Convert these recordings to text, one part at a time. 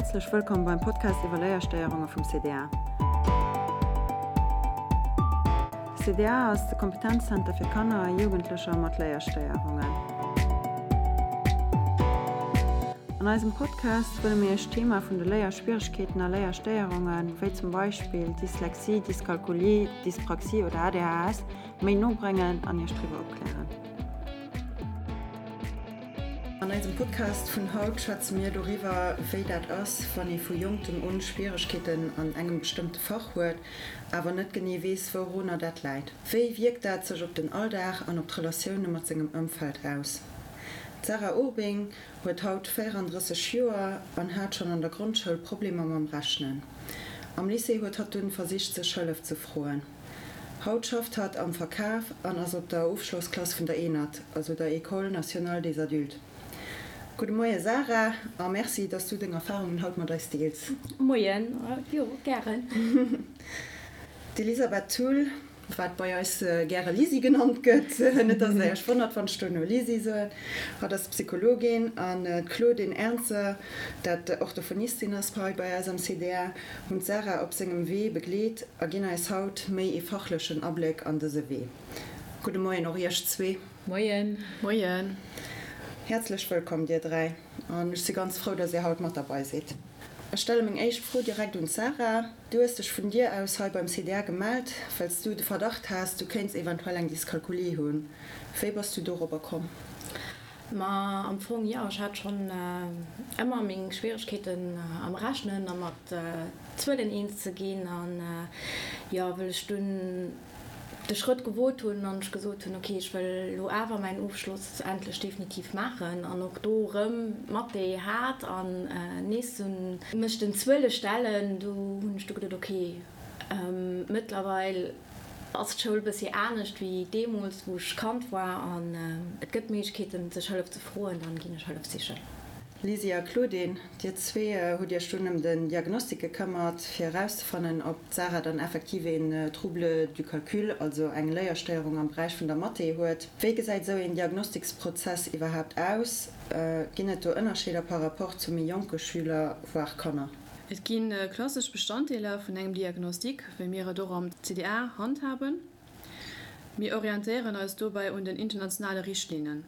Häerzlech wëllkomm beim Podcast iwwer Léierstéierunge vum CDA. De CDA ass de Kompetenzzenter fir Kanner a Jugendlecher mat Léierstéierungen. An eisem Podcast wëlle mir Iech d'Thema vun de Léierschwieregkeeten a Léierstéierungen, wéi zum Beispill Dyslexie, Dyskalkulie, Dyspraxie oder ADHS, méi no bréngen an Iech driwwer opklären. An eisem Podcast vun haut schwätze mir doriwwer, wéi dat ass, wann ee vu Jonktem un Schwieregkeeten an engem bestëmmte Fach huet, awer net genee weess, wourunner dat läit. Wéi wierkt dat sech op den Alldag an op d'Relatioune mat sengem Ëmfeld aus? D'Sarah Urbing huet haut 34 Joer an hat schonn an der Grondschoul Problemer mam Rechnen. Am Lycée huet hatt dunn versicht, sech Hëllef ze froen. Haut schafft hatt am Verkaf an ass op der Ofschlossklass vun der ENAD, also der École nationale des adultes. Gudde Moie Sarah a Merci, dass du deng Erfarungen haut mat eis deels. Moien, jo gären. D'Elisabeth Thull, wat bei eis gäre Lisi genannt gëtt, net dass der iech wonnert wann ech dono Lisi soen, hatt ass Psychologin an d'Claudine Ernzer, dat Orthophonistin ass hei bei eis am CDA, hunn d'Sarah op sengem Wee begleet a ginn eis haut méi ee fachlechen Abléck an dëse Wee. Gudde Moien och iech zwee. Moien. Moien. Häerzlech wëllkomm dir 3 an ech si ganz frou, dass dir haut mat derbei sidd. Ech stelle meng éischt Fro direkt un d'Sarah. Du hues dech vun dir aus hei beim CDA gemellt, well s du de Verdacht has, du kéints eventuell eng Dyskalkulie hunn. Wéi bass du dorobber komm? Ma am Fong jo, ech hat schonn ëmmer meng Schwieregkeeten am Rechnen a mat Zuelen eens ze ginn. An jo, wëll ech dunn de Schrëtt gewot hunn an ech gesot hunn, ok, ech wëll elo awer mäin Ofschloss endlech definitiv maachen an och do erëm Mathé hat an nees mech den Zuele stellen, do hunn ech du geduet, ok, mëttlerweil ass d'Schoul bëssi anescht wéi deemools wou ech Kand war an et gëtt Méiglechkeeten sech Hëllef ze froen, dann ginn ech Hëllef sichen. Lisi a Claudine, dir zwee hutt iech dunn ëm den Diagnostic gekëmmert, fir erauszefannen, ob d'Sarah dann effektiv een Trouble du calcul, also eng Léierstéierung am Beräich vun der Mathé huet. Wéi gesäit esou een Diagnostiksprozess iwwerhaapt aus? Ginn et do Ënnerscheeder par rapport zu méi jonke Schüler, voire Kanner? Et gi klassesch Bestanddeeler vun engem Diagnostic, wéi mir et och am CDA handhaben. Mir orientéieren eis dobäi un den internationale Richtlinnen.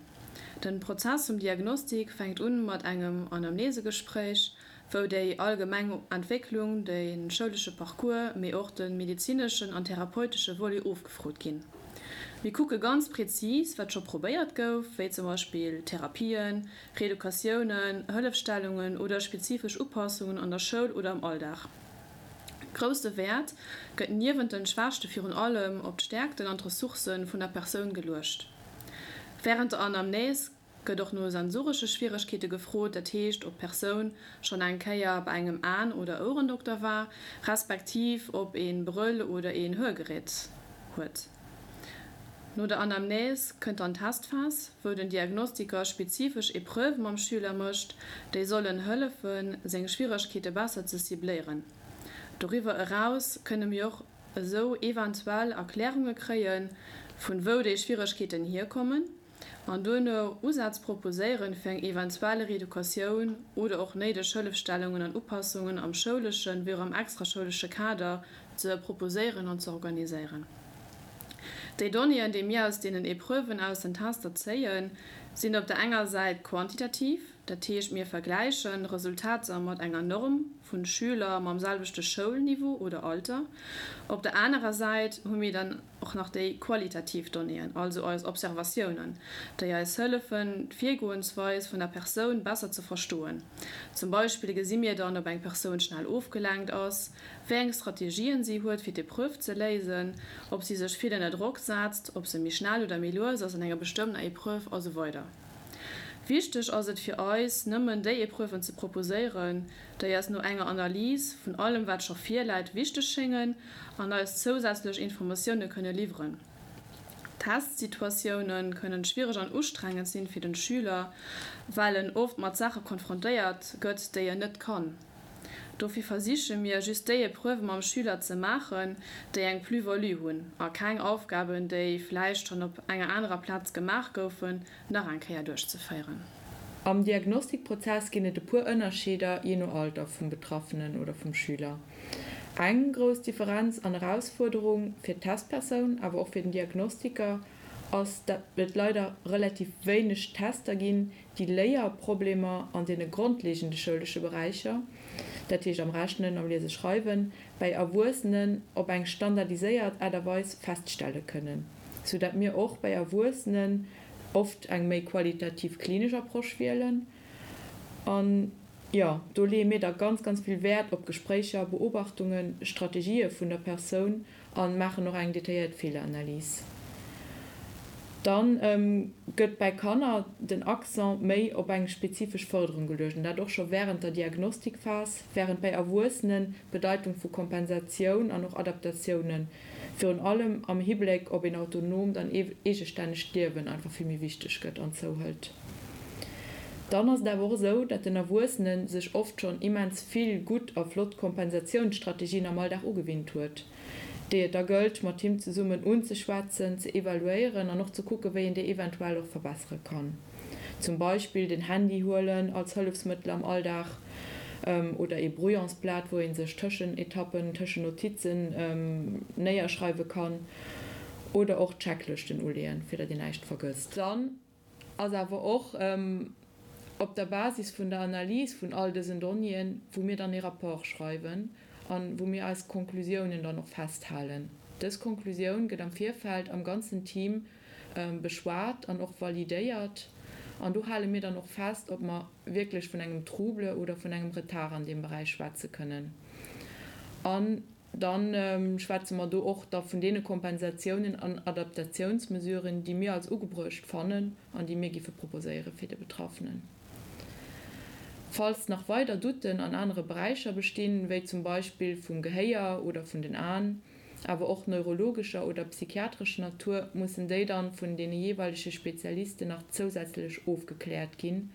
Den Prozess vum Diagnostic fänkt un mat engem Anamnesegespréich, wou déi allgemeng Entwécklung, de schoulesche Parcours, mee och de medezineschen an therapeutesche Volet ofgefrot ginn. Mir kucke ganz prezis, wat scho probéiert gouf, wéi zum Beispill Therapien, Reeducatiounen, Hëllefstellungen oder spezifesch Upassungen an der Schoul oder am Alldag. Grousse Wäert gëtt niewent den Schwächte virun allem op d'Stäerkten an d'Ressourcë vun der Persoun geluecht. Wärend der Anamnese gëtt och no sensoresche Schwieregkeete gefrot, dat heescht ob d'Persoun schonn eng Kéier bei engem Aen oder Ouerendokter war, respektiv ob ee Brëll oder een Hörgerät huet. No der Anamnese kënnt dann d'Testphas, wou den Diagnostiker spezifesch Epreuve mam Schüler mécht, déi sollen hëllefen, seng Schwieregkeete besser ze cibléieren. Doriwwer eraus kënne mir och esou eventuell Erklärunge kréien, vun wou déi Schwieregkeeten hierkommen, an duerno Usätz proposéieren, fir eng eventuell Reeducatioun oder och néideg Hëllefstellungen an Upassungen am schouleschen wéi och am extraschoulesche Kader ze proposéieren an ze organiséieren. Déi Donnéeën, déi mir aus deenen Epreuven aus den Tester zéien, sinn op der enger Säit quantitativ, dat heescht mir vergläichen Resultater mat enger Norm vu Schüler mam selwechte Schoulniveau oder Alter. Op der anerer Säit hu mir dann och nach déi qualitativ Donnéeën, also eis Observatiounen, déi eis hëllefen, d'Virgoensweis vun der Persoun besser ze verstoen. Zum Beispill gesi mir dann, ob eng Persoun schnell ofgelenkt ass, wéi eng Strategien si huet fir d'Epreuve ze léisen, ob si sech vill ënner Drock setzt, ob se méi schnell oder méi lues ass an enger bestëmmter Epreuve a sou weider. Wichteg ass et fir eis, nëmmen déi Epreuven ze proposéieren, déi eis no enger Analys vun allem wat scho virläit wichteg schéngen an eis zousätzlech Informatioune kënne liwweren. Testsituatioune kënnen schwiereg an ustrengend sinn fir den Schüler, well en oft mat Saache konfrontéiert gëtt, déi en net kann. Dofir versiche mir, just déi Epreuve mam Schüler ze maachen, déi eng Plus-value hunn, a keng Aufgaben, déi vläicht schonn op enger anerer Plaz gemaach goufen, nach eng Kéier duerchzeféieren. Am Diagnostikprozess ginn et e puer Ënnerscheeder jee no Alter vum Betraffenen oder vum Schüler. Eng grouss Differenz an Erausfuerderung fir d'Testpersoun, awer och fir den Diagnostiker, ass, dat et leider relativ wéineg Tester ginn, déi Léierproblemer an deene grondlegende schoulesche Beräicher, dat heescht am Rechnen, am Liese-Schreiwen, bäi Erwuessenen op eng standardiséiert Aart a Weis feststelle kënnen, sou dat mir och bäi Erwuessenen oft eng méi qualitativ klinesch Approche wielen. An, jo, do leeë mir da ganz, ganz vill Wäert op Gespréicher, Beobachtungen, Strategië vun der Persoun a maachen och eng detailléiert Feeleranalys. Dann gëtt bäi Kanner den Accent méi op eng spezifesch Fërderung geluecht, an dat och scho wärend der Diagnostikphas, wärend bäi Erwuessenen d'Bedeitung vu Kompensatioun an och Adaptatiounen, virun allem am Hibléck op een autonoomt an eegestännegt Liewen, einfach vill méi wichteg gëtt an zouhëlt. Dann ass et awer och esou, dat den Erwuessene sech oft schonn immens vill gutt a flott Kompensatiounsstrategien am Alldag ugewinnt huet, déi et da gëllt mat him zesummen unzeschwätzen, ze evaluéieren an och ze kucken, wéi een déi eventuell och verbessere kann. Zum Beispill den Handy huelen als Hëllefsmëttel am Alldag oder ee Brouillonsblat, wou ee sech Tëschenetappen, Tëschennotizen néierschreiwe kann oder och Checklëschten uleeën, fir datt een näischt vergësst. Dann ass awer och op der Basis vun der Analys vun all dësen Donnéeën, wou mir dann ee Rapport schreiwen a wou mir eis Konklusiounen dann och festhalen. Dës Konklusioun gëtt am Virfeld am ganzen Team beschwat an och validéiert an do hale mir dann och fest, ob mer wierklech vun engem Trouble oder vun engem Retard an deem Beräich schwätze kënnen. An Da schwätze mer do och da vun deene Kompensatiounen an Adaptatiounsmesuren, déi mir als ugebruecht fannen an déi mir giffe proposéiere fir de Betraffenen. Falls nach weider Doutten an anere Beräicher bestinn, wéi zum Beispill vum Gehéier oder vun den Aen, awer och neurologescher oder psychiatrescher Natur, mussen déi dann vun deene jeeweilege Spezialisten nach zousätzlech ofgekläert ginn.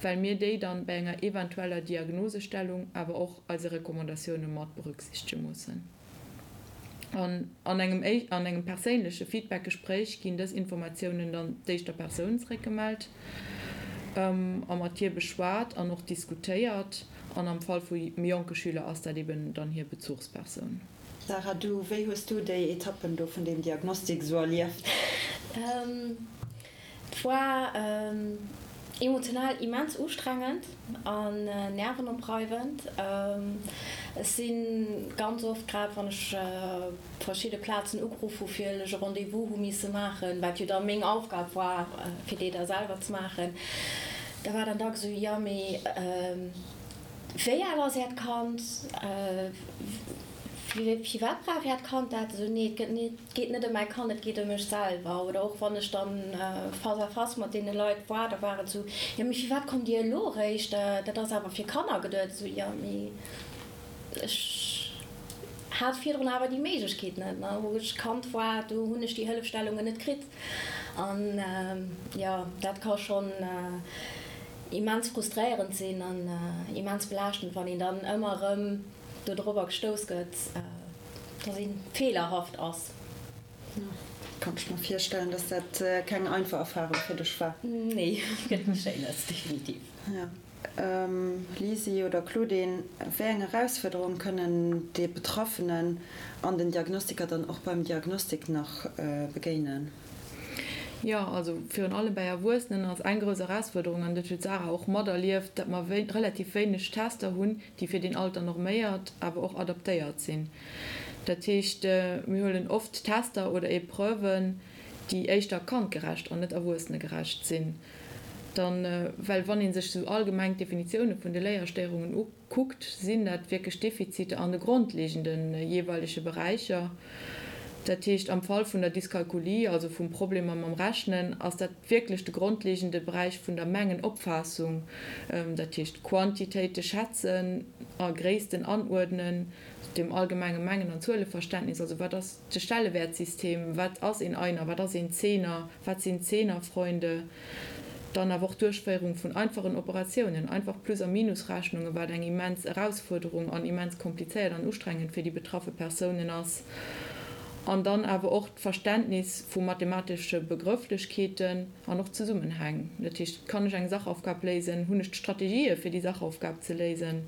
well mir déi dann bei enger eventueller Diagnosestellung awer och eise Recommandatioune mat berücksichtege mussen. An an engem an engem perséinleche Feedbackgespréich ginn dës Informatiounen dann d'éischter Persoun zeréckgemellt a mat hir beschwat an och diskutéiert an am Fall vu méi jonke Schüler ass dat eben dann hir Bezuchspersoun. Sarah, du, wéi hues du déi Etappen do vun deem Diagnostik esou erlieft? Et war emotional immens ustrengend an nervenopreiwend. Ech si ganz oft, grad wann ech op verschidde Plazen ugeruff hu fir ech e Rendez-vous hu misse maachen, wat jo da meng Aufgab war fir déi da selwer ze maachen, da war dann dacks esou, jo mee wéi al ass Äert Kand, firwat brauch Äert Kand dat? Esou, nee et gëtt net. Et geet net ëm mäi Kand, et geet ëm mech selwer. Oder och wann ech dann face à face mat deene Leit war, da war et esou, jo mee firwat kommt Dir elo eréischt, dat ass awer fir Kanner geduet. Esou, jo mee ech hat virdrun awer déi Méiglechkeet net, ne. Wou ech Kand war, do hunn ech déi Hëllefstellungen net kritt. An jo, dat ka schonn immens frustréierend sinn an immens belaaschtend, wann een dann ëmmer erëm dodrobber gestouss gëtt, dass een feelerhaft ass. Kann ech mer virstellen, dass dat keng einfach Erfahrung fir dech war. Nee, gëtt net Schéines, definitiv. Jo. Lisi oder Claudine, wéi eng Erausfuerderung kënnen de Betraffenen an den Diagnostiker dann och beim Diagnostik nach begéinen? Jo, also virun allem bäi Erwuessenen ass eng grouss Erausfuerderung, an dat huet d'Sarah och materlieft, datt mer relativ wéineg Tester hunn, déi fir deen Alter norméiert, awer och adaptéiert sinn. Dat heescht, mir huelen oft Tester oder Epreuven, déi éischter kandgerecht an net erwuessenegerecht sinn. Dann, well wann ee sech esou allgemeng d'Definitioune vun de Léierstéierungen ukuckt, sinn dat wierklech Defiziter an de grondlegende jeeweilege Beräicher. Dat heescht, am Fall vun der Dyskalkulie, also vum Problemer mam Rechnen, ass dat wierklech de grondlegende Beräich vun der Mengenopfaassung, dat heescht Quantitéite schätzen a Gréissten anuerdnen, dem allgemenge Mengen an Zueleverständnis, also wat ass de Stellewäertsystem, wat ass een Einer, wat ass een Zehner, wat sinn Zehnerfreunde, dann awer och d'Duerchféierung vun einfachen Operatiounen, einfach Plus a Minusrechnungen, wat eng immens Erausfuerderung an immens komplizéiert an ustrengend fir déi betraffe Persounen ass. An dann awer och d'Verständnis vu mathematesche Begrëfflechkeeten an och Zesummenhäng. Dat heescht, kann ech eng Sachaufgab léisen? Hunn ech d'Strategië fir déi Sachaufgab ze léisen?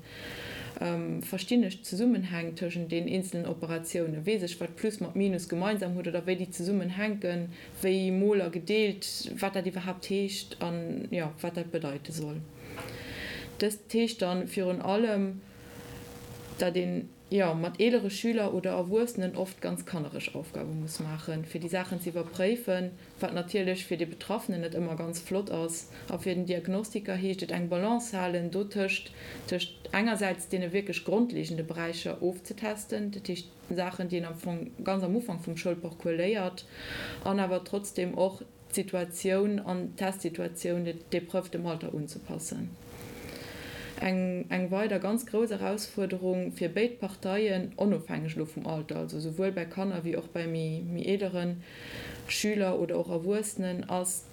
Verstinn ech d'Zesummenhäng tëschent den eenzelen Operatiounen? Weess ech, wat Plus mat Minus gemeinsam huet oder wéi déi zesummenhänken, wéi mol a gedeelt, wat dat iwwerhaapt heescht an, jo, wat dat bedeite soll? Dëst heescht dann virun allem, datt een, jo, mat eelere Schüler oder Erwuessenen oft ganz kannereg Aufgabe muss maachen, fir déi Saachen ze iwwerpréifen, wat natierlech fir de Betraffenen net ëmmer ganz flott ass. A fir den Diagnostiker heescht et eng Balance halen dotëscht, tëscht engersäits deene wierklech grondlegende Beräicher ofzetesten, dat heescht Saachen, déi een am Fong ganz am Ufank vum Schoulparcours léiert, an awer trotzdem och d'Situatioun an d'Testsituatioun, d'Épreuve dem Alter unzepassen. Eng eng weider ganz grouss Erausfuerderung fir béid Parteien, onofhängeg elo vum Alter, also esouwuel bei Kanner wéi och bei méi méi eelere Schüler oder och Erwuessenen, ass,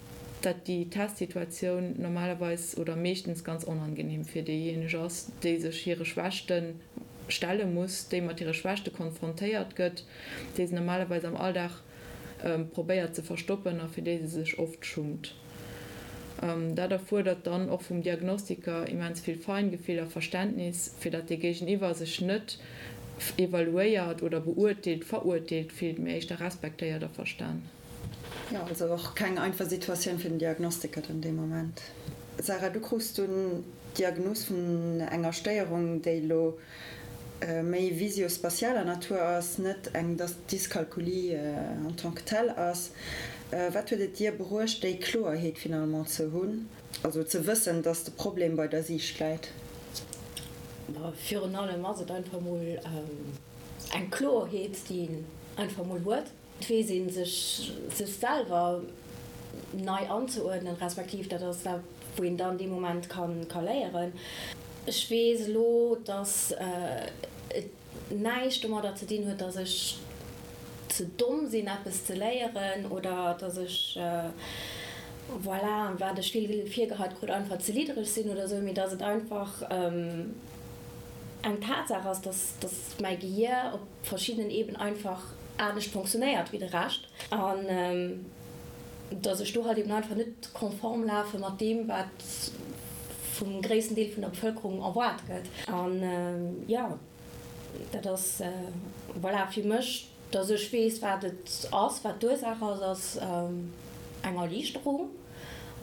datt déi Testsituatioun normalerweis oder meeschtens ganz onangenehm fir déijéineg ass, déi sech hire Schwächte stelle muss, déi mat hire Schwächte konfrontéiert gëtt, déi se normalerweis am Alldag probéiert ze verstoppen a fir déi se sech oft schummt. Dat erfuerdert dann och vum Diagnostiker immens vill Feingefill a Verständnis, fir datt dee Géigeniwwer sech net evaluéiert oder beurteelt, verurteelt fillt, mee éischter respektéiert a verstan. Jo, also och keng einfach Situatioun fir den Diagnostiker dann dee Moment. Sarah, du krus dunn d'Diagnos vun enger Stéierung, déi elo méi visio-spatialer Natur ass, net eng Dyskalkulie en tant que telle ass. Wat huet et dir bruecht, déi Kloerheet finalement ze hunn, also ze wëssen, dass de Problem bei der Siicht läit? Virun allem ass et einfach mol eng Kloerheet, déi een einfach mol huet. Et weess ee sech sech selwer nei anzeuerdnen, respektiv dat ass dat, wou een dann dee Moment ka léieren. Ech weess elo, datt et näischt domadder ze dinn huet, datt ech ze domm sinn, eppes ze léieren oder datt ech, voilà, wat ech vill virgeheit krut, einfach ze liddereg sinn oder esou, mee datt et einfach eng Tatsaach ass, datt mäi Gehier op verschiddenen Eben einfach anescht fonctionnéiert wéi de Rescht an dass ech do halt eben einfach net konform lafe mat deem, wat vum gréissten Deel vun der Bevëlkerung erwaart gëtt. An jo, dat ass, voilà, fir mech, dass ech weess, wat et ass, wat d'Ursaach ass, ass eng Erliichterung.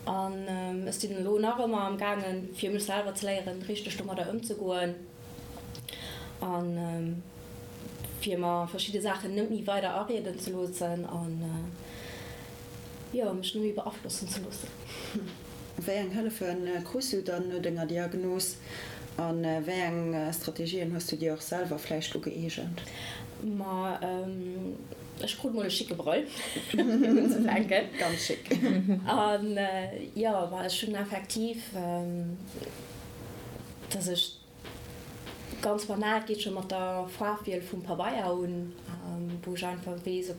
An ech sinn elo nach ëmmer am gaangen, fir mech selwer ze léieren, richteg domadder ëmzegoen. An fir mer verschidde Saachen net méi weider arieden ze loossen an jo, mech net méi beaflossen ze loossen. Wéi eng Hëllefe krus du dann no denger Diagnos a wéi eng Strategien hues du dir och selwer vläicht ugëeegent? Ma ech krut mol e schicke Brëll fir unzefänken. Ganz schick. An jo, ma ech hunn effektiv, dass ech Ganz banal, et geet scho mat der Faarfwiel vum Pabeier un, wou ech einfach weess,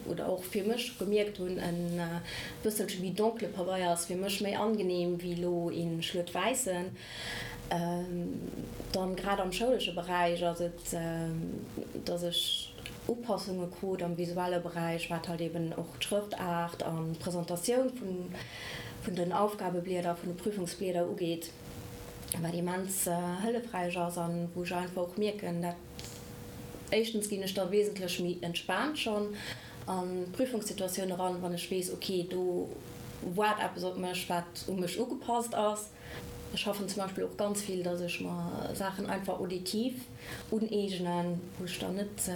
oder och fir mech gemierkt hunn, en bësselche méi donkele Pabeier ass fir mech méi angenehm wéi elo ee schluet wäissen. Dann grad am schoulesche Beräich ass et, dass ech Upassunge krut am visuelle Beräich, wat halt eben och d'Schrëftaart an d'Presentatioun vun den Aufgabeblieder, vun de Prüfungsblieder ugeet. wat immens hëllefräich ass an wou ech einfach och mierken, dat éischtens ginn ech da wesentlech méi entspaant schonn an d'Prüfungssituatioun eran, wann ech weess, ok, do waart eppes op mech, wat u mech ugepasst ass. Ech schaffen zum Beispill och ganz vill, dass ech mer Saachen einfach auditiv uneegnen, wou ech dann net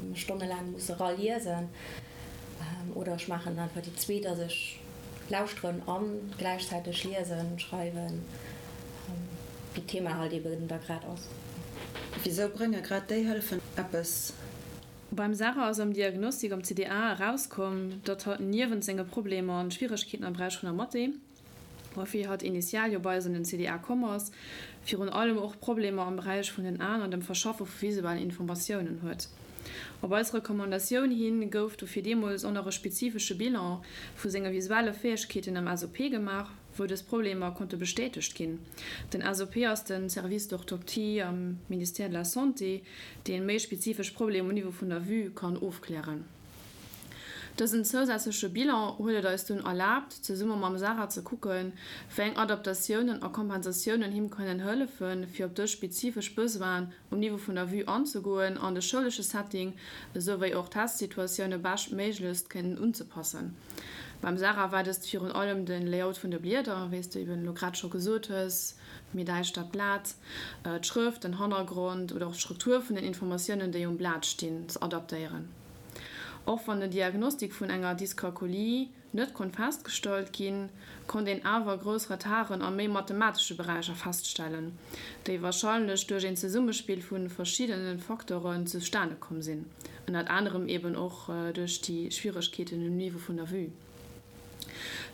mech stonnelaang muss eraliesen. Oder ech maachen einfach déi zweet, dass ech Lauschteren an gläichzäiteg liesen, schreiwen, wéi d'Thema halt eben da grad ass. Wisou brénge grad déi Hëllefen eppes? Beim Sarah ass am Diagnostik am CDA erauskomm, datt hatt niewent senge Problemer an Schwieregkeeten am Beräich vun der Mathé, woufir hatt initial jo bei eis an den CDA komm ass, virun allem och Problemer am Beräich vun den Aen an dem Verschaffe vu visuellen Informatiounen huet. Op eis Recommandatioun hin gouf dofir deemools och nach e spezifesche Bilan vu senge visuelle Fäegkeeten am SOP gemaach, wou dës Problemer konnte bestätegt ginn. Den SOP ass de Service d'orthoptie am Ministère de la Santé, dee méi spezifesch Problemer um Niveau vun der Vue kann ofklären. Dësen zousätzleche Bilan huet et eis dunn erlaabt, zesumme mam Sarah ze kucken, wéi eng Adaptatiounen a Kompensatiounen him kënnen hëllefen, fir op dës spezifesch Besoinen um Niveau vun der Vue anzegoen an de schoulesche Setting esou wéi och d'Testsituatioune beschtméiglechst kënnen unzepassen. Beim Sarah war dëst virun allem de Layout vun de Blieder, wéi s de eben elo grad scho gesot hues, méi däischtert Blat, d'Schrëft, den Hannergrond oder och d'Struktur vun den Informatiounen, déi um Blat stinn, ze adaptéieren. Och wann den Diagnostik vun enger Dyskalkulie net konnt festgestallt ginn, konnt een awer grouss Retarden a méi mathematesche Beräicher feststellen, déi warscheinlech duerch een Zesummespill vu verschiddene Facteuren zustane komm sinn, ënnert anerem eben och duerch déi Schwieregkeeten um Niveau vun der Vue.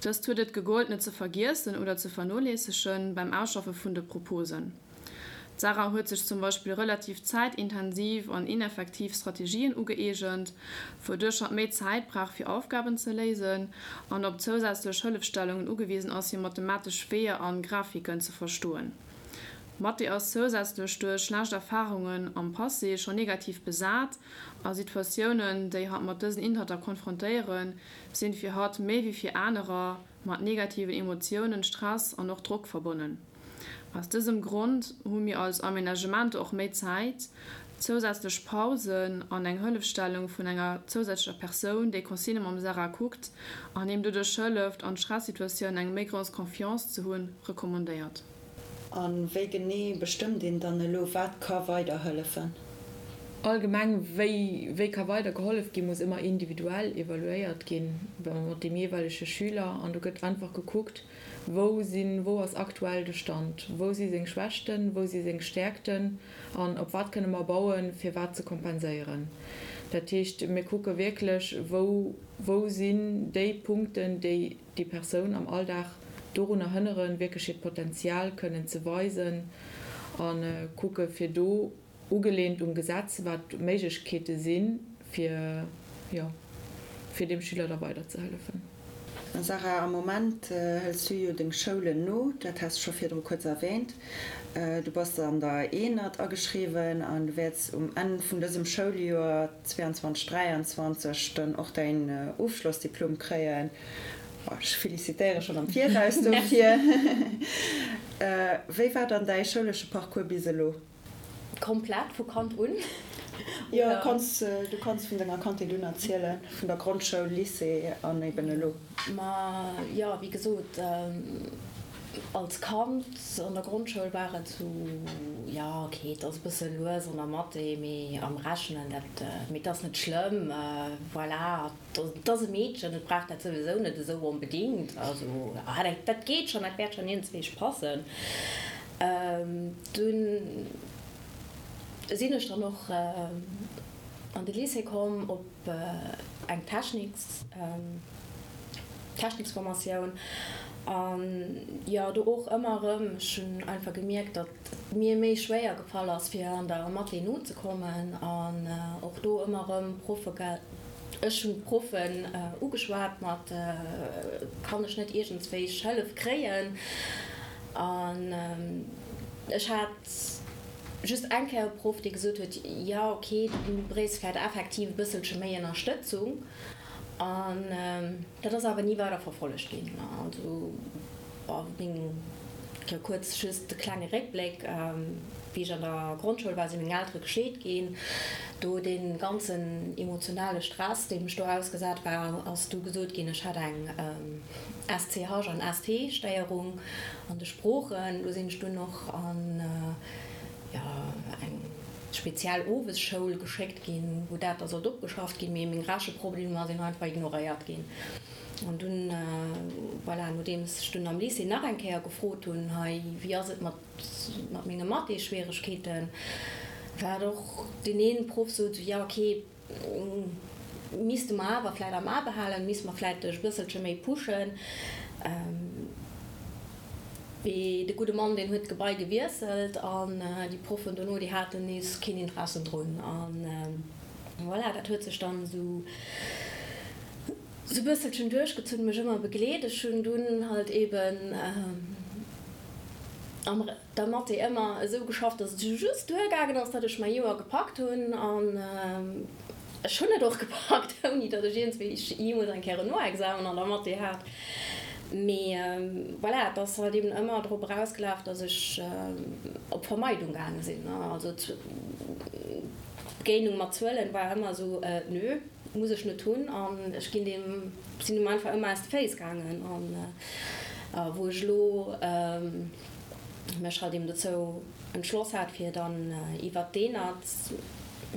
Dëst huet et gegollt net ze vergiessen oder ze vernoléissegen beim Ausschaffe vun de Proposen. D'Sarah huet sech zum Beispill relativ zäitintensiv an ineffektiv Strategien ugëeegent, wouduerch hatt méi Zäit brauch fir Aufgaben ze léisen an op zousätzlech Hëllefstellungen ugewisen ass fir mathematesch Weeër an Grafiken ze verstoen. Mathé ass zousätzlech duerch schlecht Erfarungen am Passé scho negativ besat a Situatiounen, déi hatt mat dësen Inhalter konfrontéieren, sinn fir hatt méi wéi fir anerer mat negativen Emotiounen, Stress an och Drock verbonnen. Aus dësem Grond hu mir als Aménagement och méi Zäit, zousätzlech Pausen an eng Hëllefstellung vun enger zousätzlecher Persoun, déi Consignë mam Sarah kuckt an him doduerch hëlleft, an Stressituatiounen eng méi grouss Confiance ze hunn, recommandéiert. A wéi genee bestëmmt een dann elo, wat ka weider hëllefen? Allgemeng, wéi wéi ka weider gehollef ginn, muss ëmmer individuell evaluéiert ginn mat deem jeeweilege Schüler an do gëtt einfach gekuckt, Wou sinn, wou ass aktuell de Stand? Wou si seng Schwächten, wou si seng Stäerkten an op wat kënne mer bauen, fir wat ze kompenséieren? Dat heescht, mir kucke wierklech, wou, wou sinn déi Punkten, déi déi Persoun am Alldag dorunner hënneren, wierklech hiert Potenzial kënnen ze weisen a kucke fir do Ugelehnt um Gesetz, wat d'Méiglechkeete sinn, fir, jo, fir deem Schüler da weiderzehëllefen. Sarah, am Moment hëls du jo deng Schoulen no, dat has de scho virdru kuerz erwähnt. Du bass an der Eenert ageschriwwen an du wäerts um Enn vun dësem Schouljoer 22, 23 dann och däin Ofschlossdiplom kréien. Ech felicitéiere schonn am Viraus dofir. Wéi war dann däi schoulesche Parcours bis elo? Komplett vu Kand un? Jo, kanns, du kanns vun denger Kandheet un erzielen, vun der Grondschoul, Lycée an eben elo. Ma jo, wéi gesot, als Kand an der Grondschoul war et sou, jo ok, et ass e bësse lues an der Mathé, mee am Rechnen, dat, mee et ass net schlëmm, voilà, et ass e Meedchen, et brauch dat souwisou net esou onbedingt, also dat geet schonn, dat wäert schonn iergendswéi passen. Dunn sinn ech dann och an de Lycée komm op eng Techniks, Techniksformatioun an jo do och ëmmer erëm, ech hunn einfach gemierkt, datt et mir méi schwéier gefall ass fir an der Mathé nozekommen an och do ëmmer erëm Proffe, ech hunn d'Proffen ugeschwat mat, kann ech net iergendswéi Hëllef kréien? An ech hat just eng Kéier e Proff, dee gesot huet, jo ok, du bréichs vläicht effektiv e bësselche méi Ënnerstëtzung. An dat ass awer ni weider verfollegt ginn. Also bon, meng, jo kuerz just e klenge Réckbléck, Wéi ech an der Grondschoul war, si meng Eltere gescheet ginn. Do dee ganzen emotionale Stress, deem ech do ausgesat war, ass du gesot ginn, ech hätt eng SCH an ST Stéierung an de Sproochen. Do sinn ech dunn och an jo eng speziell Owesschoul geschéckt ginn, wou dat da sollt opgeschafft ginn, mee meng Recheproblemer sinn einfach ignoréiert ginn. An dunn, voilà, nodeems ech dunn am Lycée nach eng Kéier gefrot hunn, hei wéi ass et mat mat menge Mathé-Schwieregkeeten, war et och deen een Proff sot, jo ok, Misste mer awer vläit am A behalen, misste mer vläit dech e bësselche méi pushen. Mee de gudde Mann, deen huet d'Gebai gewiesselt an déi Proffen dono, déi haten nees keen Interesse drun. An voilà, dat huet sech dann esou e bësselchen duerchgezunn, mech ëmmer begleet. Ech hunn dunn halt eben am. Der Mathé ëmmer esou geschafft, dass et just duergaangen ass, datt ech mäi Joer gepackt hunn an. Ech hunn et och gepackt, ouni datt ech iergendswéi jeemools eng Kéier en Noexamen an der Mathé hat. Mee voilà, et ass halt eben ëmmer drop erausgelaf, datt ech op Vermeidung gaange sinn. Also d'Begéinung mat Zuelen war ëmmer esou, Nö, muss ech net hunn. An ech ginn deem, sinn deem einfach ëmmer aus de Féiss gaangen. An wou ech elo mech halt eben dozou entschloss hat, fir dann iwwert d'ENAD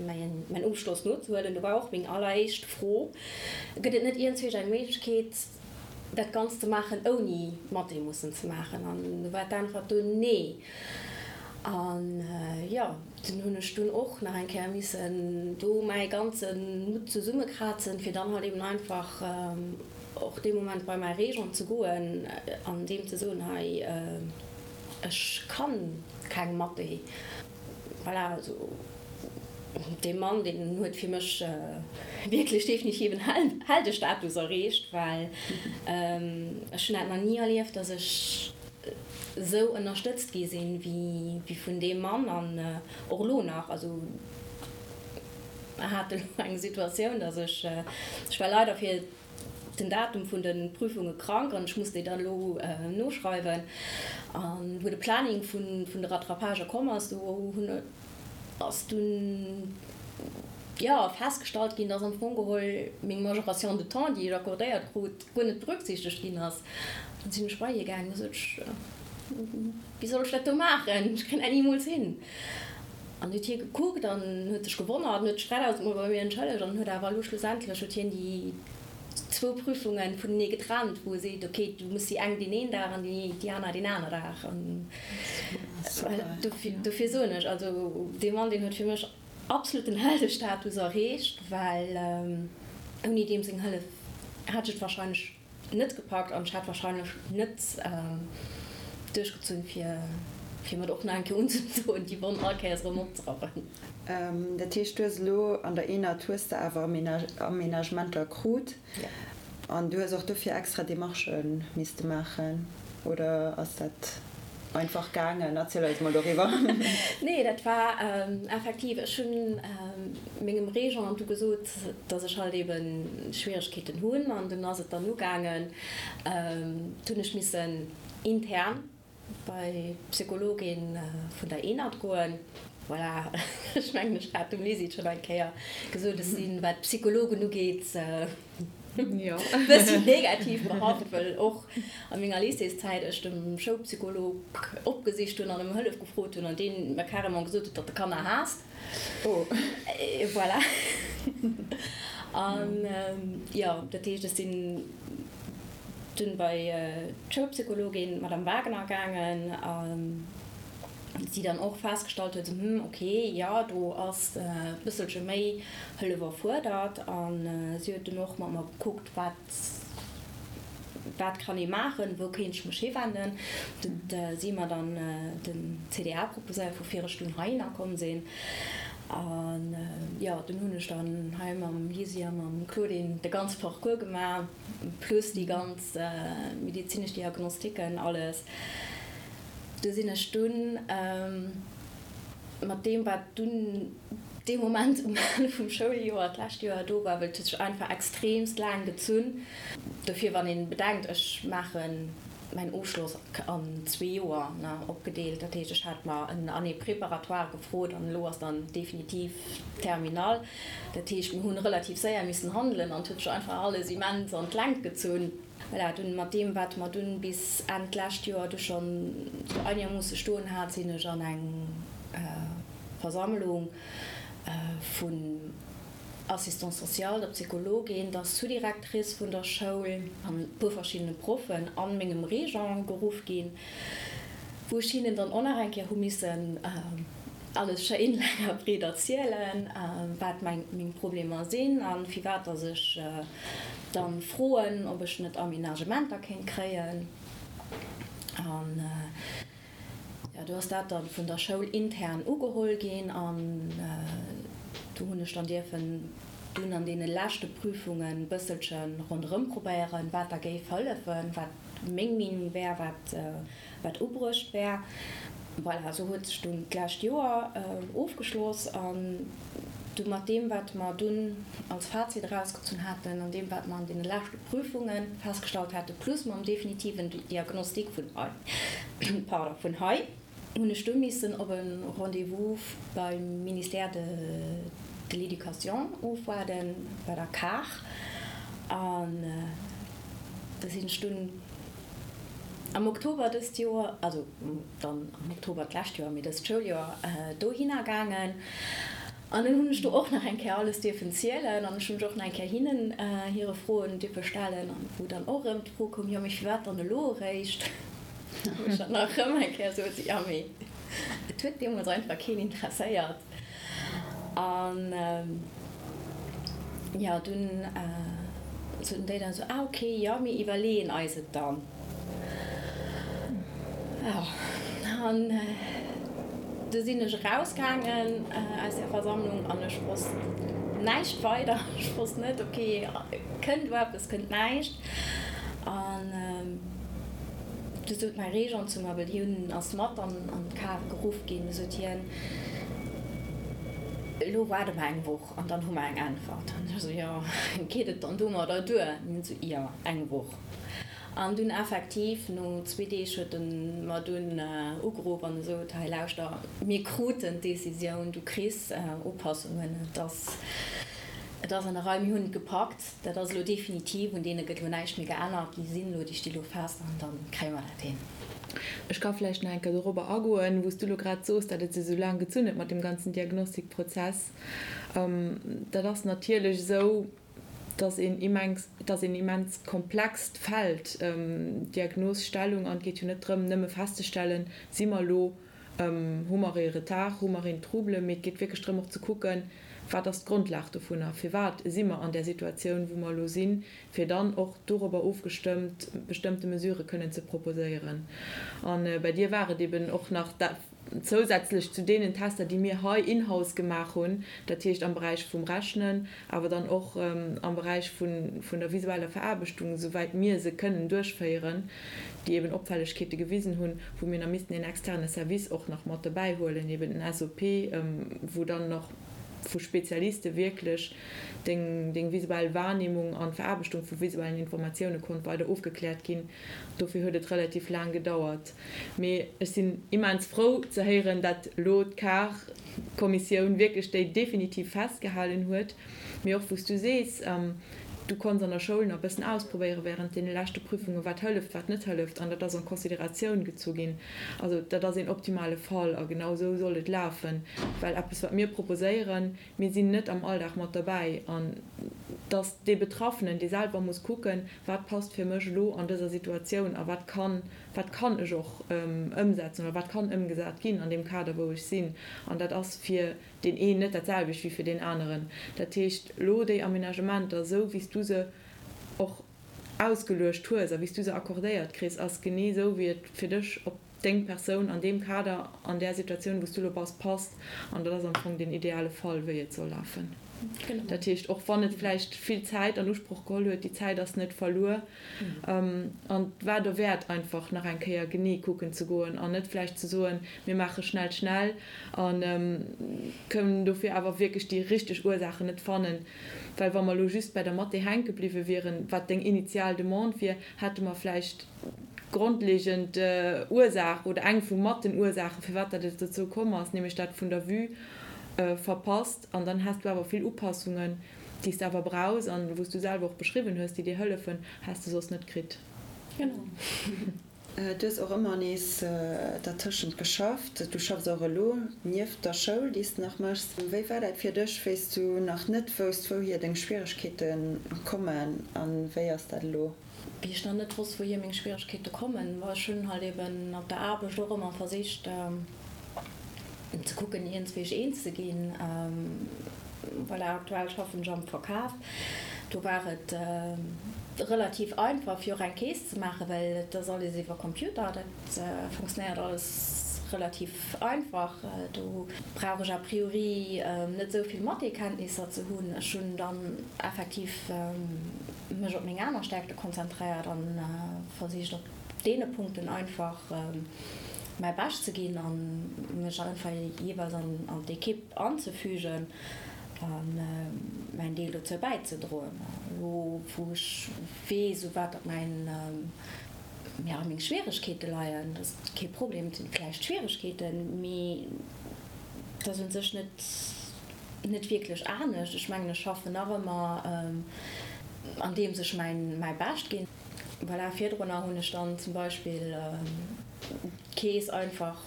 mäin Ofschloss nozehuelen, do war och meng alleréischt Fro, Gëtt et net iergendzwousch eng Méiglechkeet, dat Ganzt ze maachen, ouni Mathé mussen ze maachen? An do war d'Äntwert dunn Nee. An jo, dunn hunn ech dunn och nach eng Kéier missen do mäi ganze Mutt zesummekrazen, fir dann halt eben einfach och dee Moment bei mäi Régent ze goen an deem ze soen, Hei, Ech kann keng Mathé. Voilà, also dee Mann, deen huet fir mech wierklech definitiv en Heldestatus erreecht, well ech hunn dat nach ni erlieft, dass ech esou ënnerstëtzt gi sinn, wéi vun deem Mann an och elo nach. Also mer hate elo eng Situatioun, dass ech, ech war leider fir den Datum vun de Prüfunge krank an ech muss déi dann elo noschreiwen. An wou de Planning vun de Rattrapagë komm ass, do hunn ass dunn jo festgestallt ginn, dass am Fong geholl meng Majoration de temps, déi ech accordéiert krut, guer net berücksichtegt ginn ass. Dann sinn ech bei hie gaangen, da sot ech, Wéi soll ech dat do maachen? Ech kréien dat nimools hin. An huet hie gekuckt an huet sech gewonnert an huet sech 3000 Mol bei mir entschëllegt an huet awer elo schlussendlech huet hien déi zwou Prüfunge vunenee getrennt, wou e seet, ok, du muss déi eng deen een Dag an déi aner deen aner Dag. An dofir soen ech, also dee Mann, deen huet fir mech absolut den Heldestatus erreecht, well ouni deem seng Hëllef hätt ech et wahrscheinlech net gepackt an ech hätt wahrscheinlech net duerchgezunn fir fir mer och nach eng Kéier unzedoen déi Wonn all Kéiers erëm opzerappen. Dat heescht du hues elo an der ENAD hues de awer Aménagementer krut an du hues och dofir extra Demarchë misste maachen oder ass dat? Einfach gaangen? Erziel eis mol doriwwer. Nee, dat war effektiv, ech hunn mengem Régent du gesot, dass ech halt eben Schwieregkeeten hunn an dunn ass et dann ugaangen, du hunn ech missen intern bei d'Psychologin vun der ENAD goen. Voilà, ech mengen ech hat dem Lisi et schonn eng Kéier gesot, ech sinn, wat d'Psychologen ugeet, Bëssi negativ behaft, well och a menger Lycéeszäit ech de Schoulpsycholog opgesicht hunn an ëm Hëllef gefrot hunn an deen mer carrément gesot huet, datt e Kanner haasst. Voilà. An jo, dat heescht, ech sinn dunn bei d'Schoulpsychologin, d'Madame Wagner, gaangen. Si dann och festgestallt huet, hm, ok, jo, do ass e bësselche méi Hëllef erfuerdert. A si huet dunn och mat mer gekuckt, wat, wat kann ee maachen, wou kéint ech mech hiwenden. Huet si mer dann den CDA proposéiert, woufir ech dunn heihinner komm sinn. An jo, dunn hunn ech dann hei mam Lisi a mam Claudine de ganze Parcours gemaach, plus déi ganz medezinesch Diagnostiken, alles. Du sinn ech dunn mat deem, wat dunn dee Moment um Enn vum Schouljoer d'lescht Joer do war, well et huet sech einfach extreemst laang gezunn. Dofir, wann ee bedenkt, ech maache mäin Ofschloss an zwee Joer, ne, opgedeelt, dat heescht, ech hat mer en Année préparatoire gefrot an elo ass dann definitiv Terminale. Dat heescht, mir hunn relativ séier missen handelen an et huet sech einfach alles immens an d'Längt gezunn. Voilà, dunn mat deem, wat mer dunn bis Enn d'lescht Joer du schonn sou einermoosse stoen hat, sinn ech an eng Versammlung vun Assistante sociale, der Psychologin, der Sous-directrice vun der Schoul an e puer verschiddene Proffen an mengem Régent geruff ginn, wou ech hinnen dann och nach eng Kéier hu missen alles schéin laang a breet erzielen, wat meng Problemer sinn a firwat dass ech dann froen, ob ech net Aménagementer kéint kréien. An jo, do ass dat dann vun der Schoul intern ugeholl ginn an do hunn ech dann dierfen dunn an deene leschte Prüfungen e bësselche ronderëm probéieren, wat da géif hëllefen, wat meng Meenung wär, wat wat ubruecht wär. Voilà, esou huet sech dunn d'lescht Joer ofgeschloss an. Du mat deem, wat mer dunn als Fazit erausgezunn haten an deem, wat mer an deene leschte Prüfunge festgestallt haten, plus mam definitiven Diagnostic vun hei, pardon, vun hei, hunn ech du missen op e Rendez-vous beim Ministère de de l'Éducation ofwaarden, bei der CAR. An da sinn ech dunn am Oktober dëst Joer, also dann am Oktober d'lescht Joer, mee dëst Schouljoer, dohinner gaangen. An dunn hunn ech do och nach eng Kéier alles dierfen zielen an ech hunn mech och nach eng Kéier hinnen hire Froen dierfe stellen an wou dann och erëm d'Fro koum, jo mee firwat dann elo eréischt? Wou ech dann nach erëm eng Kéier sot, jo mee et huet deemools einfach keen interesséiert. An jo dunn soten déi dann esou, ah ok, jo mir iwwerleeën eis et dann. Jo, an du sinn ech erausgaangen aus där Versammlung an ech wosst näischt weider. Ech wosst net, ok, kënnt elo eppes, kënnt näischt. An du sot mäi Régent zu mer, well hien ass mat an d'Kar geruff ginn, du sot hien, Elo waarde mer eng Woch an dann hu mer eng Äntwert. An ech esou, Jo, geet et dann domadder duer? An hien esou, Jo, eng Woch. An dunn effektiv, no zwee Deeg huet en mer dunn ugeruff an esot, Hei lauschter, mir kruten d'Decisioun, du kriss Upassungen, et ass, et ass an der Rei, mir hunn et gepackt, dat ass elo definitiv, un deene gëtt elo näischt méi geännert, déi sinn elo, déi sti elo fest an da kréie mer dat hin. Ech ka vläicht nach eng Kéier dorobber agoen, wou s du elo grad soos, datt et sech esou laang gezunn huet mat deem ganzen Diagnostikprozess. Dat ass natierlech esou, Et ass een immens, et ass een immens komplext Feld, d'Diagnosstellung, an et geet jo net drëm, nëmme festzestellen, si mer elo, hu mer ee Retard, hu mer een Trouble, mee et geet wierklech drëm och ze kucken, wat ass d'Grondlag dovunner, firwat si mer an där Situatioun, wou mer elo sinn, fir dann och dorobber ofgestëmmt bestëmmte Mesurë kënnen ze proposéieren. A bei dir war et eben och nach Zousätzlech zu deenen Tester, déi mir hei in-house gemaach hunn, dat heescht am Beräich vum Rechnen, awer dann och am Beräich vun der visueller Veraarbechtung, esouwäit mir se kënnen duerchféieren, déi eben Opfällegkeete gewisen hunn, wou mir nach missten een externe Service och nach mat dobäi huelen, eben den SOP, wou dann nach vu Spezialiste wierklech deng visuell Wahrnehmung an d'Veraarbechtung vu visuellen Informatioune konnt weider ofgekläert ginn. Dofir huet et relativ laang gedauert. Mee ech sinn immens frou ze héieren, dat elo d'CAR-Kommissioun wierklech déi definitiv festgehalen huet. Mee och wou s du sees, du konns an der Schoul nach e bëssen ausprobéiere während deene leschte Prüfungen, wat hëlleft, wat net hëlleft, an dat ass en Consideratioun gezu ginn. Also dat ass een optimale Fall a genau esou soll et lafen, well eppes wat mir proposéieren, Mir sinn net am Alldag mat derbäi an dass dee Betraffenen, dee selwer muss kucken, wat passt fir mech elo an dëser Situatioun a wat kann, wat kann ech och ëmsetzen oder wat kann ëmgesat ginn an deem Kader, wou ech sinn. An dat ass fir deen een net dat selwecht wéi fir deen aneren. Dat heescht, elo déi Aménagementer, esou wéi s du se och ausgeluecht hues a wéi s du se accordéiert kriss, ass genee esou wéi et fir dech op deng Persoun an deem Kader, an där Situatioun, wou s du elo bass, passt. An dat ass am Fong deen ideale Fall, wéi et soll lafen. Dat heescht, och wann et vläicht vill Zäit an Usproch geholl huet, déi Zäit ass net verluer. An et war derwäert, einfach nach eng Kéier genee kucken ze goen an net vläicht ze soen, mir maache schnell, schnell a kënnen dofir awer wierklech déi richteg Ursaachen net fannen. Well wa mer elo just bei der Mathé hänke bliwwe wieren, wat deng initial Demande wier, hätte mer vläicht d'grondlegend Ursaach oder eng vu mat den Ursaachen, firwat dat et dozou komm ass, nämlech dat vun der Vue, verpasst. An dann häss du awer vill Upassungen, déi s de awer brauchs an wou s du selwer och beschriwwen hues, déi dir hëllefen, häss de soss net kritt. Genau. Du hues och ëmmer nees dertëschent geschafft. Du schaffs och elo nieft der Schoul, déi s de nach méchs. Wéi war dat fir dech, wéi s du nach net wousst, wouhier deng Schwieregkeete kommen a wéi ass dat elo? Wéi ech nach net wosst, wouhier meng Schwieregkeete kommen, ma ech hunn halt eben op der Aarbecht och ëmmer versicht ze kucken, iergendswéi eens ze ginn. Voilà, aktuell schaffen ech am Verkaf. Do war et relativ einfach, fir och eng Keess ze maachen, well et ass alles iwwer Computer. Dat funktionéiert alles relativ einfach. Do brauch ech a priori net esou vill Mathé-Kenntnisser ze hunn. Ech hunn dann effektiv mech op meng aner Stärkte konzentréiert an versicht op deene Punkten einfach mäi Bescht ze ginn an mech einfach jeeweils an d'Ekipp anzefügen. A mäin Deel dozou bäizedroen. Elo wou ech weess, u wat datt mäin, jo, meng Schwieregkeete leien, dat ass kee Problem, et sinn vläicht Schwieregkeeten, mee et ass u sech net, net wierklech anescht. Ech mengen, ech schaffen nach ëmmer andeems ech mäin, mäi Bescht ginn. Voilà, virdrunner hunn ech dann zum Beispill d'Keess einfach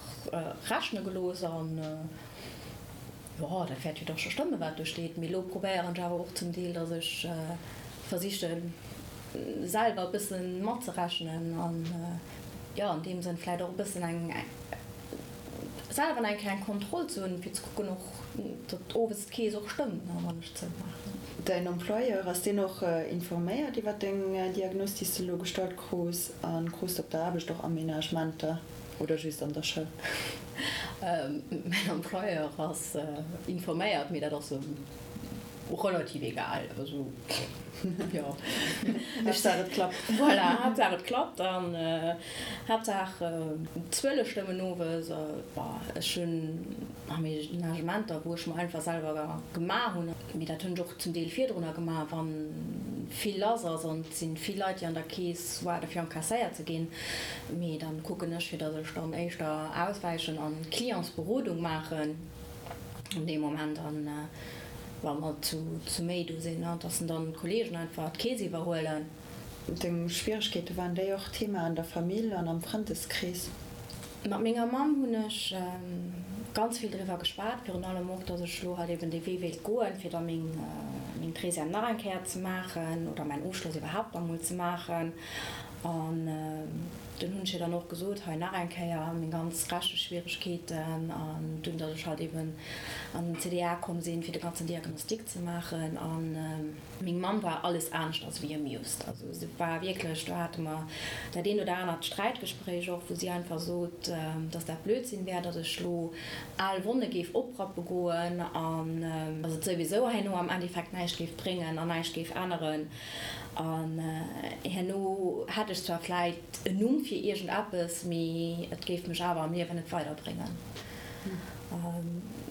rechne gelooss an. Jo, dat wäert jo dach scho stëmmen, wat do steet. Mee elo probéieren ech awer och zum Deel, datt ech versichen, selwer e bësse matzerechnen an, jo, an deem Sënn vläicht och e bëssen eng, selwer eng kleng Kontroll ze hunn, fir ze kucken och, datt owes d'Keess och stëmmt, wann ech zoumaachen. Däin Employeur, ass deen och informéiert iwwer deng Diagnos, déi s de elo gestallt krus? A krus de op der Aarbecht och Aménagementer oder just an der Schoul? Mäin Employeur ass informéiert, mee dat ass em relativ egal. Also, jo. Haaptsaach et klappt. Voilà, Haaptsaach et klappt an Haaptsaach d'Zuele stëmmen owes. Bon, ech hunn Aménagementer, wou ech mer einfach selwer gemaach hunn, mee dat hunn ech och zum Deel virdrunner gemaach, wa vill lass ass an et si vill Leit, déi an der Keess waarde fir encasséiert ze ginn. Mee dann kucken ech, fir datt ech dann éischter auswäichen an Clientsberodung maachen an deem Moment an wa mer zu méi do sinn, datt dann d'Kollegen einfach d'Keess iwwerhuelen. Deng Schwieregkeete, waren déi och Thema an der Famill an am Frëndeskrees? Mat menger Mamm hunn ech ganz vill driwwer geschwat, virun allem och, dass ech elo halt eben dee Wee wéilt goen, fir da meng meng Treizième nach eng Kéier ze maachen oder mäin Ofschloss iwwerhaapt nach emol ze maachen. An dunn hunn ech hir dann och gesot, hei nach eng Kéier meng ganz Recheschwieregkeeten an dunn, dass ech halt eben an den CDA komm sinn, fir de ganzen Diagnostic ze maachen. An. Meng Mamm war alles aneschters wéi amused. Also se war wierklech, do hate mer dat eent oder anert Sträitgespréich och, wou si einfach sot, dass dat Blödsinn wär, dass ech lo al Wonne géif oprappe goen an dass et souwisou herno am Endeffekt näischt géif bréngen an näischt géif änneren. An herno hätt ech zwar vläit en Numm fir iergendeppes, mee et géif mech awer am Liewen net weiderbréngen.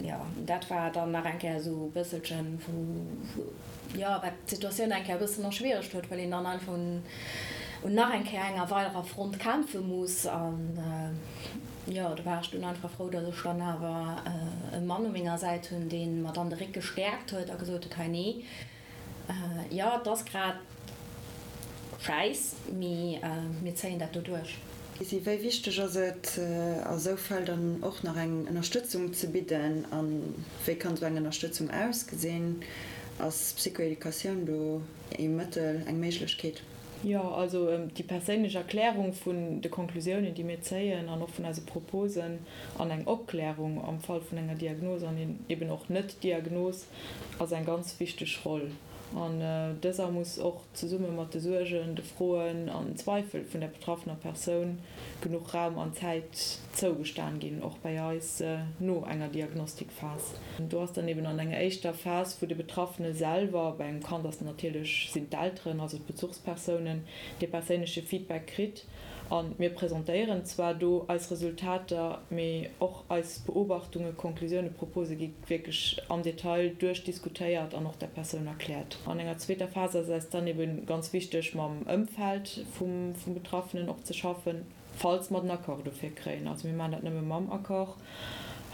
Jo, dat war dann nach eng Kéier esou e bësselchen, wou, jo, wat d'Situatioun eng Kéier e bëssen erschwieregt huet, well een dann einfach un, un nach eng Kéier enger weiderer Front kämpfe muss. An, jo, do war ech dunn einfach frou, datt ech dann awer e Mann u menger Säit hunn, dee mer dann de Réck gestäerkt huet a gesot huet, Hei, nee, Jo, et ass grad schäiss, mee mir zéien dat do duerch. Lisi, wéi wichteg ass et a sou Fäll dann och nach eng Ënnerstëtzung ze bidden? A wéi kann sou eng Ënnerstëtzung ausgesinn? Ass Psychoeducatioun do ee Mëttel, eng Méiglechkeet? Jo, also déi perséinlech Erklärung vun de Konklusiounen, déi mir zéien an och vun eise Proposen an eng Opklärung am Fall vun enger Diagnos an eben och Net-Diagnos, ass eng ganz wichteg Roll an dëser muss och zesumme mat de Suergen, de Froen an den Zweifel vun der betraffener Persoun genuch Raum an Zäit zougestan ginn, och bäi eis no enger Diagnostikphas. Do ass dann eben an enger éischter Phas, wou de Betraffene selwer, bei engem Kand ass natierlech sinn d'Elteren, also d'Bezuchspersounen, dee perséinleche Feedback kritt, A mir presentéieren zwar do eis Resultater, mee och eis Beobachtungen, Konklusiounen, Propose gi wierklech am Detail duerchdiskutéiert an och der Persoun erkläert. An enger zweeter Phas ass eis dann ebe ganz wichteg, mam Ëmfeld vum Betraffenen och ze schaffen, falls mer den Accord dofir kréien. Also mir maachen dat nëmme mam Accord.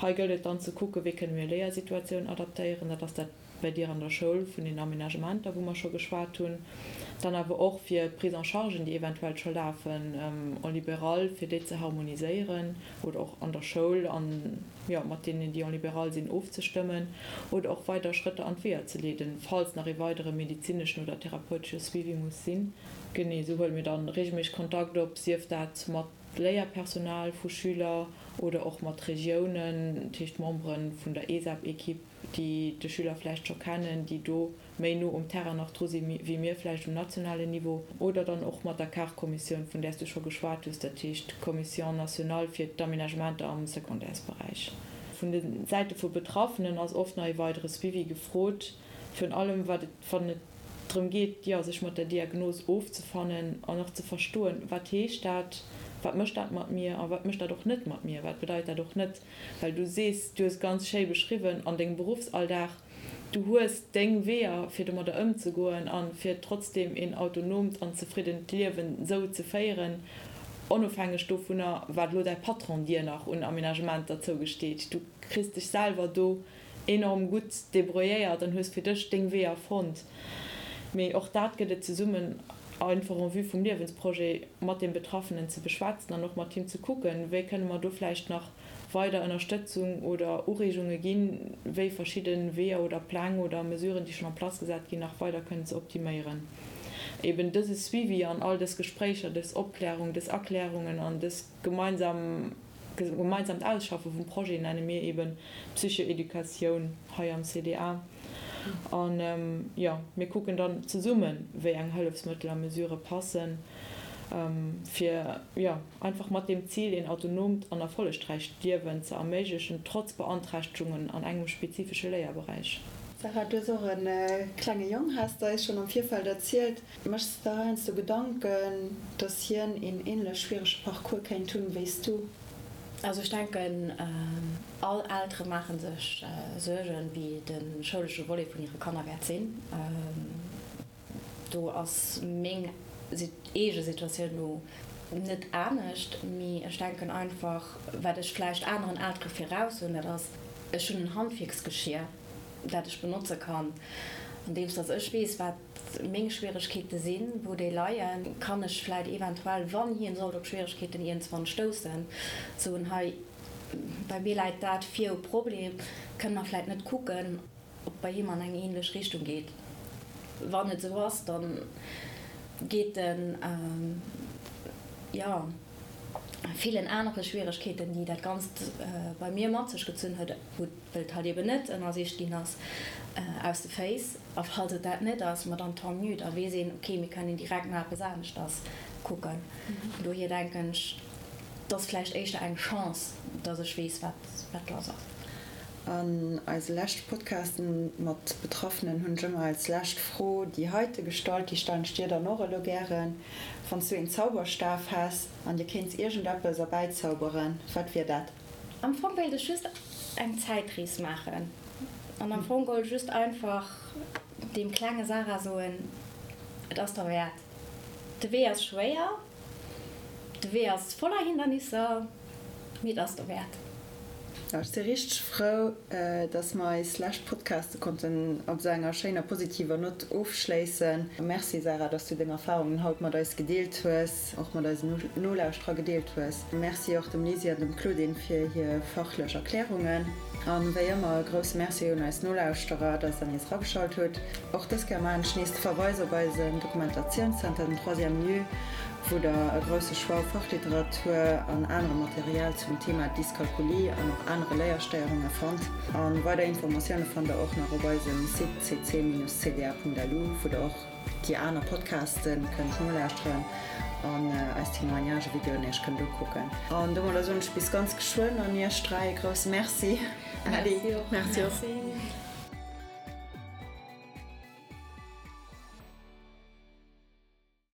Hei gëllt et dann ze kucken, wéi kënne mir Léiersituatioun adaptéieren. Dat ass dat bei dir an der Schoul vun den Aménagementer, wou mer scho geschwat hunn, dann awer och fir Prise-en-chargen, déi eventuell scho lafen en libéral, fir déi ze harmoniséieren oder och an der Schoul an, jo, mat deenen, déi en libéral sinn, ofzestëmmen oder och weider Schrëtter an d'Weeër ze leeden, falls nach ee weidere medezineschen oder therapeutesche Suivi muss sinn. Genee esou huele mir dann regelméisseg Kontakt op, sief dat mat Léierpersonal vu Schüler oder och mat Regiounen, dat heescht Membere vun der ESAP-Equipe, déi de Schüler vläicht scho kennen, déi do méi no um Terrain nach dru si wéi mir vläicht um nationalen Niveau, oder dann och mat der CAR-Kommissioun, vun där s du scho geschwat hues, dat heescht d'Commission nationale fir d'Aménagementer am Secondaires-Beräich. Vun de Säite vu Betraffenen ass oft nach ee weidere Suivi gefrot, virun allem wat et, wann et drëm geet, jo, sech mat der Diagnos ofzefannen an och ze verstoen, wat heescht dat, wat mécht dat mat mir a wat mécht dat och net mat mir, wat bedeit dat och net. Well du sees, du hues ganz schéi beschriwwen, an dengem Beruffsalldag. Du hues deng Weeër fir domadder ëmzegoen a fir trotzdeem een autonoomt an zefriddent Liewen sou ze féieren, onofhängeg dovunner wat elo däi Patron dir nach un Aménagementer zougesteet. Du kriss dech selwer do enorm gutt débrouilléiert an hues fir dech deng Weeër fonnt. Mee och dat gëtt et zesummen einfach en vue vum Liewensprojet mat deem Betraffenen ze beschwätzen an och mat him ze kucken, wéi kënne mer do vläicht nach weider Ënnerstëtzung oder Ureegunge ginn, wéi verschidde Weeër oder Pläng oder Mesuren, déi schonn en place gesat ginn, nach weider kënnen ze optiméieren. Eben dëse Suivi an all dës Gespréicher, dës Opklärung, dës Erklärungen an dës gemeinsam, gemeinsamt Ausschaffe vum Projet nenne mir eben Psychoeducatioun hei am CDA. An, jo, mir kucken dann zesummen, wéi eng Hëllefsmëttel a Mesurë passen, fir, jo, einfach mat deem Zil, een autonoomt an erfollegräicht Liewen ze erméiglechen, trotz Beanträchtegungen an engem spezifesche Léierberäich. Sarah, du hues och e klenge Jong, has de eis schonn am Virfeld erzielt. Méchs de der heiansdo Gedanken, dass hien een änlech schwierege Parcours kéint hunn wéi s du? Also ech denken, all Eltere maache sech Suergen, wéi de schoulesche Volet vun hire Kanner wäert sinn. Do ass meng eege Situatioun elo net anescht, mee ech denken einfach, wat ech vläicht aneren Eltere viraus hunn, dat ass, ech hunn en Handwierksgeschier, dat ech benotze kann, andeems dass ech weess, wat meng Schwieregkeete sinn, wou déi leien, kann ech vläicht eventuell, wann hien sollt op Schwieregkeeten iergendswann stoussen, soen, hei, bei mir läit dat vir u Problem, kënne mer vläicht net kucken, ob bei him an eng ähnlech Richtung geet. Wann et esou ass, da geet en, jo, villen anere Schwieregkeeten, déi dat Ganzt bei mir mat sech gezunn huet, wou well et halt eben net ënnersicht ginn ass, aus de Féiss. A falls et dat net ass, ma dann tant mieux, da weess een, okay, mir kënnen direkt no eppes aneschters kucken. Dohier denken ech, et ass vläicht éischter eng Chance, dass ech weess, wat wat lass ass. An eise leschte Podcasten mat Betraffenen hunn ech ëmmer als lescht Fro déi heite gestallt, déi stellen ech dir dann och elo gären, Wann s du een Zauberstaf häss an dir kéints iergendeppes erbäizauberen, wat wier dat? Am Fong wéilt ech just eng Zäitrees maachen an am Fong geholl just einfach deem klenge Sarah soen, et ass derwäert. De Wee ass schwéier, de Wee ass voller Hindernisser, mee et ass derwäert. Ech si richteg frou, dass mer eis lescht Podcaste konnten op esou enger schéiner positiver Nott ofschléissen. Merci Sarah, dass du deng Erfahrungen haut mat eis gedeelt hues, och mat eisen Nolauschterer gedeelt hues. Merci och dem Lisi an dem Claudine fir hir fachlech Erklärungen. An wéi ëmmer e grousse Merci un eis Nolauschterer, dass der nees erageschalt hutt. Och dës Kéier maachen ech nees de Verweis op eisen Dokumentatiounszenter, den Troisième Lieu, wou der e grousse Choix u Fachliteratur an anerem Material zum Thema Dyskalkulie an och anere Léierstéierunge fannt. A weider Informatioune fannt der och nach op eisem Site cc-cda.lu, wou der och déi aner Podcaste kënnt nolauschteren an eis Témoignage-Videoen iech kënnt ukucken. An domadder soen ech bis ganz geschwënn an iech 3 e grousse Merci. Merci och. Merci.